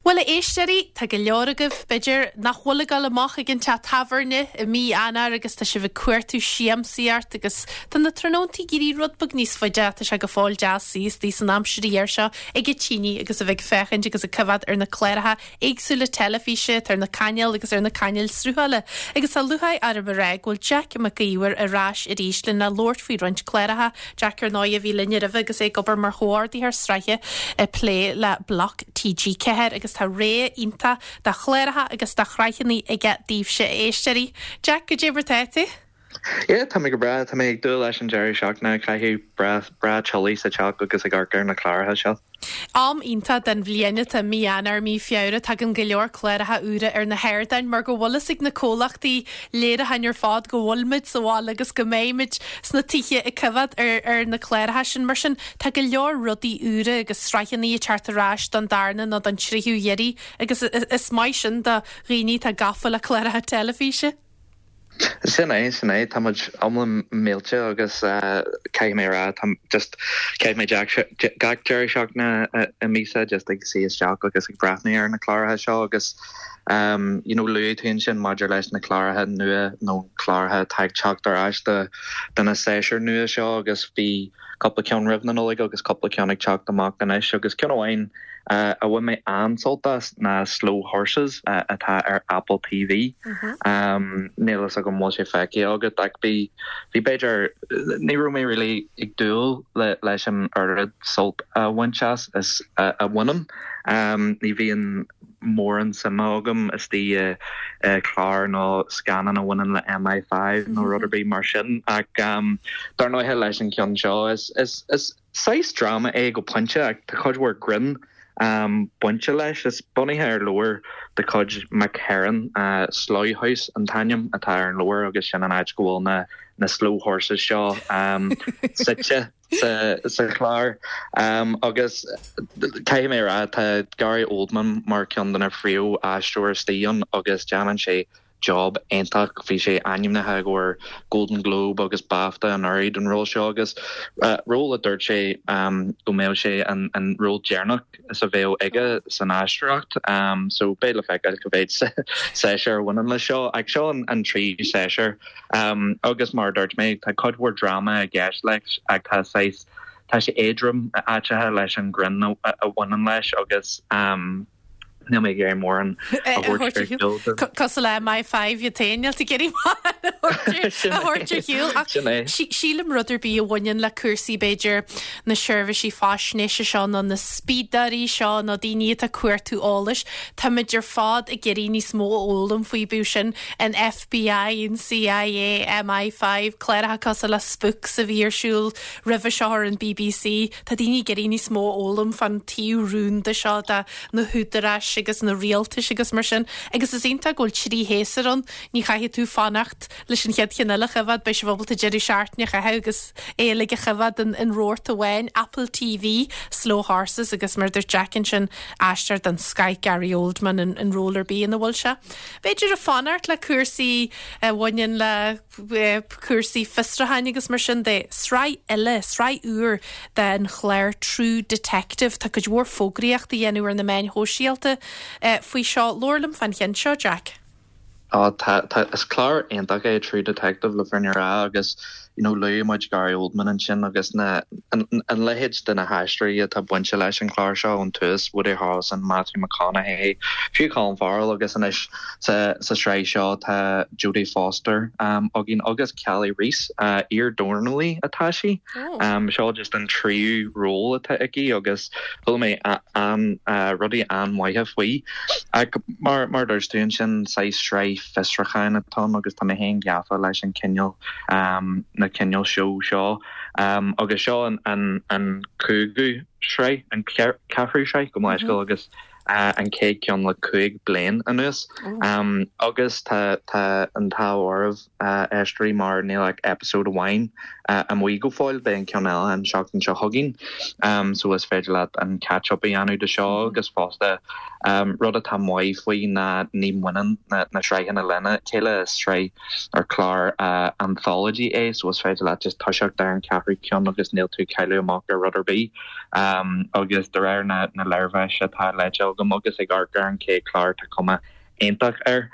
Bhuel, a éisteoirí, tá go leor agaibh, b'fhéidir, nach bhfuil ag dul amach ag an teach tábhairne i mí Eanáir agus tá sibh ag cuartú siamsaíocht agus tá na tráthnóntaí ag éirí rud beag níos faide ach tá sé go fóill deas suí istigh san aimsir ghéar seo ag an tine agus a bheith ag féachaint agus ag coimhéad ar na cláracha éagsúla teilifíse atá ar na cainéil agus ar na cainéil sruthála. Agus tá lúcháir orm a rá go bhfuil Jack Mac Íomhair ar ais arís lena labhairt faoi roinnt cláracha. Jack, ar ndóigh, a bhí linn roimhe agus é ag obair mar chomhordaitheoir sraithe ag plé le Bloc TG4 agus tá rogha iontach de chláracha agus de shraitheanna aige daoibhse, a éisteoirí. Jack, goidé mar tá tú? Yeah, tá mé go breá. Tá mé ag dúil leis an deireadh seachtaine a chaitheamh breá breá teolaí sa teach agus ag amharc ar na cláracha seo. Am iontach den bhliain atá mí Eanáir, mí Feabhra. Tagann go leor cláracha úra ar na hardáin mar go bhfuil fhios ag na comhlachtaí léiriúcháin ar fad go bhfuil muid sa bhaile agus go mbeidh muid sna tithe ag coimhéad ar ar na cláracha sin. Mar sin, tá go leor rudaí úra agus sraitheanna ag teacht ar ais don darna nó don tríú hiarraidh agus is maith sin do dhaoine atá gafa le cláracha teilifíse. Sin é, sin é. Tá muid iomlán millte agus caithfidh mé a rá, tá just, chaith mé gach deireadh seachtaine i míosa just ag suí isteach agus ag breathnú ar na cláracha seo agus you know luaigh tú ansin maidir leis na cláracha nua nó cláracha atá ag teacht ar ais do do na séasúir nua seo agus bhí cúpla ceann roimh na Nollag agus cúpla ceann ag teacht amach anois agus ceann amháin a bhain mé an-sult as ná Slow Horses atá ar Apple TV. Níl fhios agam an bhfuil sé feicthe agat ach bhí, bhí b'fhéidir, ní raibh mé really ag dúil leis an oiread sult a bhaint as is a bhainim. Ní bhíonn mórán suime agam istigh i clár nó scannán a bhaineann le MI5 nó rud ar bith mar sin ach dar ndóighe leis an cheann seo is, is, is, Saghas dráma é go pointe ach tá cuid mhór grinn bainte leis. Is bunaithe ar leabhar de chuid Mick Herron, Slough House an t-ainm atá ar an leabhar agus sin an áit go bhfuil na na slow horses seo suite sa chlár. Agus caithfidh mé a rá, tá Gary Oldman mar ceann de na phríomh-aisteoirí istigh ann agus déanann sé job iontach. Bhí sé ainmnithe i gcomhair Golden Globe agus BAFTA anuraidh don ról seo agus ról a dúirt sé go mbeadh sé an ról deireanach is a bheadh aige san aisteoireacht. So beidh le feiceáil cá mhéad séasúr a bhaineann leis seo. Ach seo an tríú séasúr agus mar a dúirt mé tá cuid mhór dráma i gceist leis ach tá saghas tá sé éadrom áiteacha leis an greann a bhaineann leis agus Níl mé ag iarraidh mórán a thabhairt ar shiúl. Cosúil le MI5 iad féin, níl tú ag iarraidh mórán a thabhairt ar shiúl. Ach sílim rud ar bith a bhaineann le cúrsaí b'fhéidir na seirbhísí faisnéise seo nó na spiadóirí seo nó daoine atá ag cuartú eolais, táimid ar fad ag iarraidh níos mó a fhoghlaim faoi, bíodh sin an FBI, an CIA, MI5, cláracha cosúil le Spooks a bhí ar siúl roimhe seo ar an BBC. Tá daoine ag iarraidh níos mó a fhoghlaim fán taobh rúnda seo de na húdaráis agus na rialtais agus mar sin. Agus is iontach go bhfuil trí shéasúr ann, ní chaithfidh tú fanacht leis an chéad cheann eile a choimhéad, beidh sibh ábalta deireadh seachtaine a chaitheamh agus é uilig a choimhéad in rabharta amháin. Apple TV, Slow Horses agus mar a dúirt Jack ansin, aisteoir den scoth Gary Oldman in ról ar bith ina bhfuil sé. B'fhéidir ag fanacht le cúrsaí a bhaineann le. cúrsaí fiosrúcháin agus mar sin de. Sraith eile, sraith úr den chlár True Detective. Tá cuid mhór fógraíocht á dhéanamh ar na meáin shóisialta faoi seo. Labhair liom fán cheann seo, Jack. Á, tá, tá, is clár iontach é True Detective le fírinne a rá agus, you know, luaigh muid Gary Oldman ansin agus na, an, an leithéid de na haisteoirí atá bainte leis an chlár seo ón tús, Woody Harrelson, Matthew McConaughey, fiú Colin Farrell agus anois Sa sraith seo tá Jodie Foster againn agus Kali Reis, iar-dornálaí atá sí. Seo just an tríú ról atá aici agus chuala mé rudaí an-mhaithe faoi. Ach mar a dúirt tú ansin, saghas sraith fiosrúcháin atá ann agus tá mé féin gafa leis an cineál, na cineál seó seo. Agus seo an cúigiú sraith, an ceathrú sraith, gabh mo leithscéal, agus an chéad ceann le 5 bliain anuas. Agus tá an t-ádh oraibh, a éisteoirí, mar níl ach episode amháin amuigh go fóill, beidh an ceann eile an seachtain seo chugainn. So is féidir leat an catch up a dhéanamh de seo agus fosta rud atá maith faoi ná ní bhaineann na sraitheanna lena chéile, is sraith ar clár anthology é so is féidir leat just toiseacht ar an ceathrú ceann agus níl tú ag cailleadh amach ar rud ar bith. Agus de réir na léirmheas atá léite agam. agam agus ag amharc ar an chéad chlár tá cuma iontach air.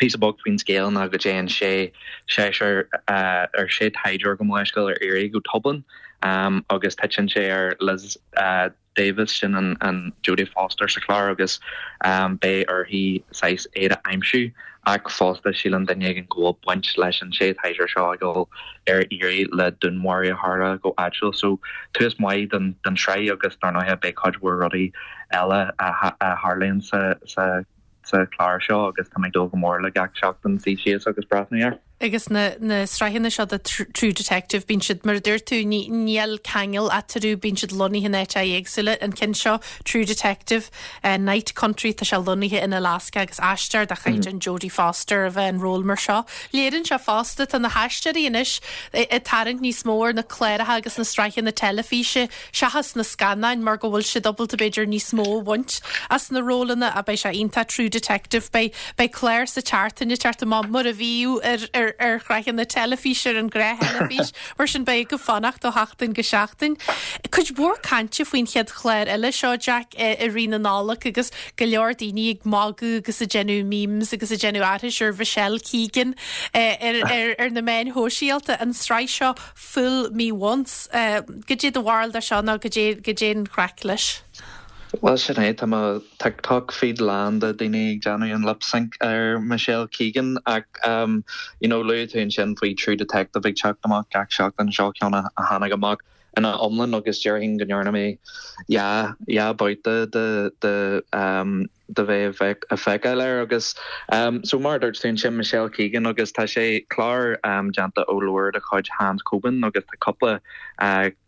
Píosa beag faoin scéal ná go dtéann sé seisear ar sé taighdeoir gabh mo leithscéal ar iarraidh go Dublin agus titeann sé ar Liz Davis, sin an Jodie Foster sa chlár agus beidh uirthi saghas iad a aimsiú ach fosta síleann duine éigin go bhfuil baint leis an sé taighdeoir seo ag dul ar iarraidh le dúnmharú a tharla go áitiúil. So tús maith don tsraith agus dar ndóighe beidh cuid mhór rudaí eile a tharlaíonn sa sa sa chlár seo agus tá mé ag dúil go mór le gach seachtain suí síos agus breathnú air. Agus na na sraitheanna seo de True Detective, bíonn siad, mar a dúirt tú, ní níl ceangal eatarthu, bíonn siad lonnaithe in áiteacha éagsúla. An ceann seo, True Detective, Night Country, tá sé lonnaithe in Alaska agus aisteoir de chaighdeán Jodie Foster a bheith in ról mar seo. Léiríonn sé fosta, tá na haisteoirí anois ag tarraingt níos mó ar na cláracha agus na sraitheanna teilifíse seachas na scannáin mar go bhfuil siad ábalta b'fhéidir níos mó a bhaint as na rólanna ach beidh sé iontach True Detective beidh beidh clár sa tseachtain ag teacht amach mar a bhíodh ar ar ar shraitheanna teilifíse ar an ghnáth-theilifís mar sin beidh agaibh fanacht ó sheachtain go seachtain. Cuid mhór cainte faoin chéad chlár eile seo Jack i i rith na Nollag agus go leor daoine ag magadh agus ag déanamh memes agus ag déanamh aithris ar Michelle Keegan ar ar ar na meáin shóisialta an tsraith seo Fool Me Once. Goidé do bharúil de seo nó goidé, goidé an chraic leis? Bhuel sin é, tá mo TikTok feed lán de daoine ag déanamh an lip sync ar Michelle Keegan ach you know luaigh tú ansin faoi True Detective ag teacht amach gach seachtain, seo ceann a tháinig amach ina iomlán agus déarfainn go ndearna mé dhá, dhá babhta de, de de bheith ag feiceáil air agus so mar a dúirt tú ansin Michelle Keegan agus tá sé clár déanta ó leabhar de chuid Hans Coben agus tá cúpla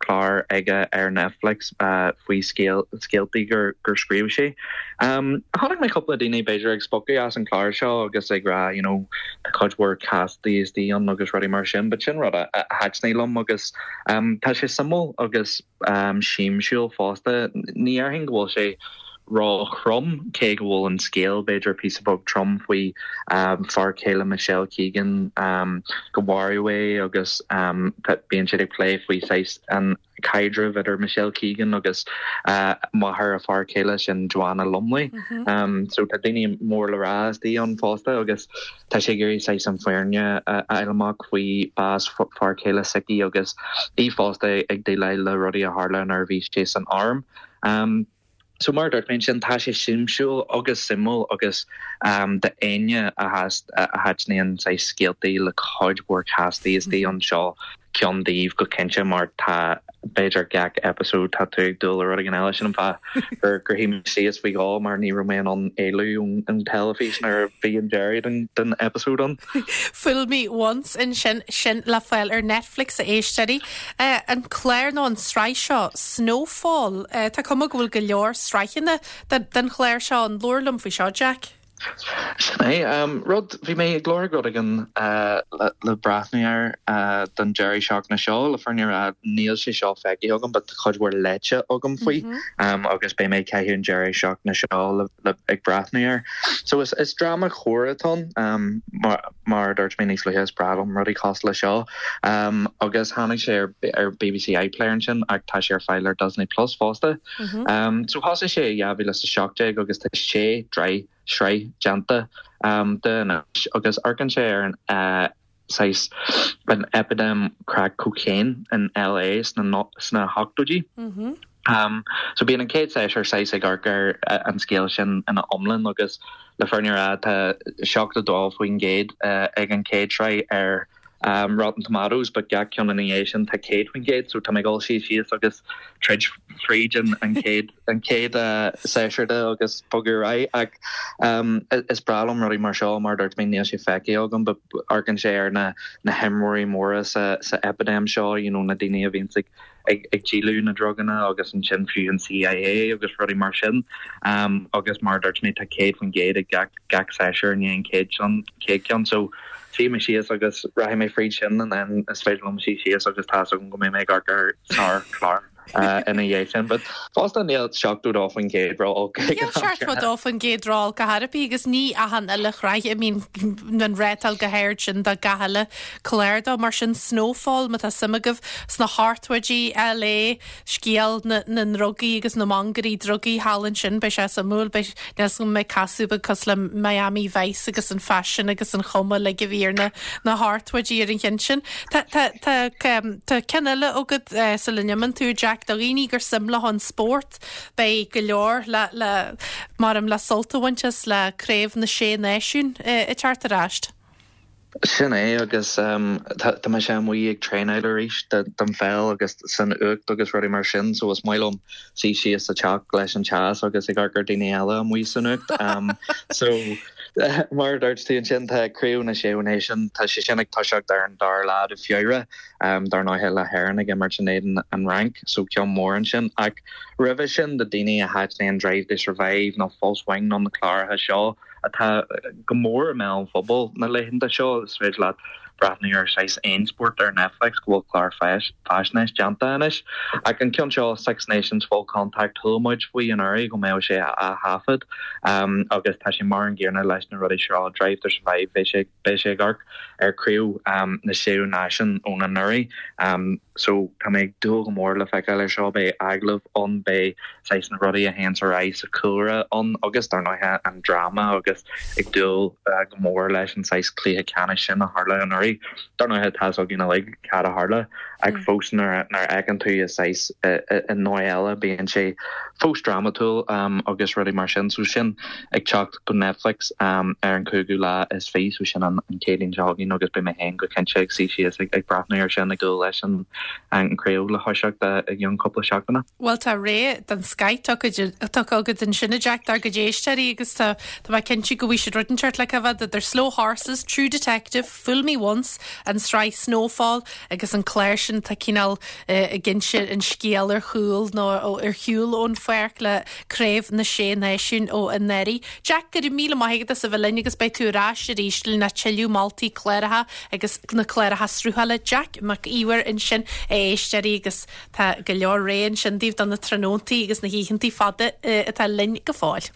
clár aige ar Netflix faoi scéal scéaltaí gur gur scríobh sé. Chonaic mé cúpla daoine b'fhéidir ag spochadh as an chlár seo agus ag rá you know tá cuid mhór castaí istigh ann agus rudaí mar sin but sin rud a thaitnigh liom agus tá sé suimiúil agus siamsúil fosta. Ní dhéarfainn go bhfuil sé ró-throm, cé go bhfuil an scéal b'fhéidir píosa beag trom faoi fear céile Michelle Keegan, go maraíodh é agus bíonn siad ag plé faoi saghas an caidreamh idir Michelle Keegan agus máthair a fear céile, sin Joanna Lumley. So tá daoine mór le rá istigh ann fosta agus. Tá sé ag iarraidh saghas an fhírinne a fháil amach faoi bás fear céile s'aici agus í fosta ag déileáil le rudaí a tharla nuair a bhí sé san arm. So mar a dúirt mé ansin, tá sé siamsúil agus suimiúil agus d'éinne a thaitníonn saghas scéaltaí le cuid mhór castaí istigh ann seo ceann daoibh go cinnte mar tá b'fhéidir gach episode tá tú ag dúil le rud éigin eile sin an fáth gur gur shuigh mé síos faoi dhó mar ní raibh mé in ann éalú ón teilifís nuair a bhí an deireadh den den episode ann. Fool Me Once ansin sin le fáil ar Netflix a éisteoirí. An clár nó an tsraith seo Snowfall tá cuma go bhfuil go leor sraitheanna den chlár seo ann. Labhair liom faoi seo Jack. Sin é. Rud, bhí mé ag lorg rud éigin le breathnú air don deireadh seachtaine seo. Le fírinne a rá, níl sé seo feicthe agam but tá cuid mhór léite agam faoi agus beidh mé ag caitheamh an deireadh seachtaine seo le ag breathnú air. So is is dráma coir atá ann mar mar a dúirt mé níos luaithe is breá liom rudaí cosúil le seo. Agus tháinig sé ar ar BBC iPlayer ansin ach tá sé ar fáil ar Disney Plus fosta. So thosaigh sé i 2017 agus tá sé sraith déanta de anois agus amharcann sé ar an saghas an eipidéim crack cocaine in LA sna sna hochtóidí. So bíonn an chéad séasúr saghas ag amharc ar an scéal sin ina iomlán agus le fírinne a rá tá 72% ag an chéad sraith ar Rotten Tomatoes but gach ceann ina dhiaidh sin tá 100% so tá mé ag dul suí síos agus troid fríd an an chéad an chéad séasúr de agus bogadh ar aghaidh ach is breá liom rudaí mar seo mar a dúirt mé níl sé feicthe agam but amharcann sé ar na na himreoirí móra sa sa eipidéim seo you know na daoine a bhíonns ag ag ag díoladh na druganna agus ansin fiú an CIA agus rudaí mar sin agus mar a dúirt mé tá 100% ag gach gach séasúr i ndiaidh an chéad sin chéad ceann so suífidh mé síos agus rachaidh mé fríd sin and then is féidir liom suí síos agus tá's agam go mbeidh mé ag amharc ar sár chlár. Ina dhiaidh sin. But fosta níl 72% ró-olc ag an am. Níl 72% ró-olc ar chor ar bith agus ní achan uile shraith a mbíonn an rátáil chomh hard sin do gach uile clár dó. Mar sin Snowfall, má tá suim agaibh sna hochtóidí, LA, scéal na ndrugaí agus na mangairí drugaí thall ansin, beidh sé suimiúil. Beidh, níl 'fhios agam an mbeidh casadh beag cosúil le Miami Vice agus an faisean agus an chuma uilig a bhí ar na na hochtóidí ar an cheann sin. Tá, tá, tá, tá ceann eile agat sula n-imíonn tú, Jack, do dhaoine gur suim leo an spórt, beidh go leor le, le, maram le sult a bhaint as le Craobh na Sé Náisiún ag teacht ar ais. Sin é agus tá mise amuigh ag traenáil arís don pheil agus san fhuacht agus rudaí mar sin so is maith liom suí síos sa teach leis an teas agus ag amharc ar daoine eile amuigh san fhuacht. So mar a dúirt tú ansin tá Craobh na Sé Náisiún, tá sé sin ag toiseacht ar an dara lá de Feabhra, dar ndóighe le hÉirinn ag imirt in éadan an Fhrainc so ceann mór ansin ach roimhe sin do daoine a thaitníonn Drive to Survive nó Full Swing nó na cláracha seo, atá go mór i mbéal an phobail na laethanta seo. Is féidir leat breathnú ar saghas aon spórt ar Netflix go bhfuil clár faisnéis déanta anois. Ach an ceann seo, Six Nations Full Contact, chuala muid faoi anuraidh go mbeadh sé á thaifead agus tá sé mar an gcéanna leis na rudaí seo, Drive to Survive, beidh sé beidh sé ag amharc ar Craobh na Sé Náisiún ón anuraidh. So tá mé ag dúil go mór le feiceáil ar seo, beidh agallaimh ann, beidh saghas na rudaí a théanns ar aghaidh sa chúlra ann agus dar ndóighe an dráma agus ag dúil go mór leis an saghas cluiche ceannais sin a tharla anuraidh. Dar ndóighe tá fhios againn uilig cad a tharla ach fós nuair a fheiceann tú i saghas i ndóigh eile bíonn sé fós drámatúil agus rudaí mar sin. So sin ag teacht go Netflix ar an cúigiú lá is fiche, so sin an Chéadaoin seo chugainn agus beidh mé féin go cinnte ag suí síos ag breathnú ar sin ag dúil leis an chraobh le thoiseacht i gceann cúpla seachtaine. Bhuel tá rogha den scoth tugtha agat ansin a Jack dár gcuid éisteoirí agus tá mé cinnte go bhfaighidh siad rud inteacht le coimhéad idir Slow Horses, True Detective, Fool Me Once, an tsraith Snowfall agus an clár sin atá cineál ag inse an scéal ar chúl nó ar shiúl ón pháirc le Craobh na Sé Náisiún ó anuraidh. Jack, go raibh míle maith agat as a bheith linn agus beidh tú ar ais arís lena tuilleadh moltaí cláracha agus na cláracha sruthála. Jack Mac Íomhair ansin, a éisteoirí, agus tá go leor rogha ansin daoibh do na tráthnóntaí agus na hoícheantaí fada atá linn go fóill.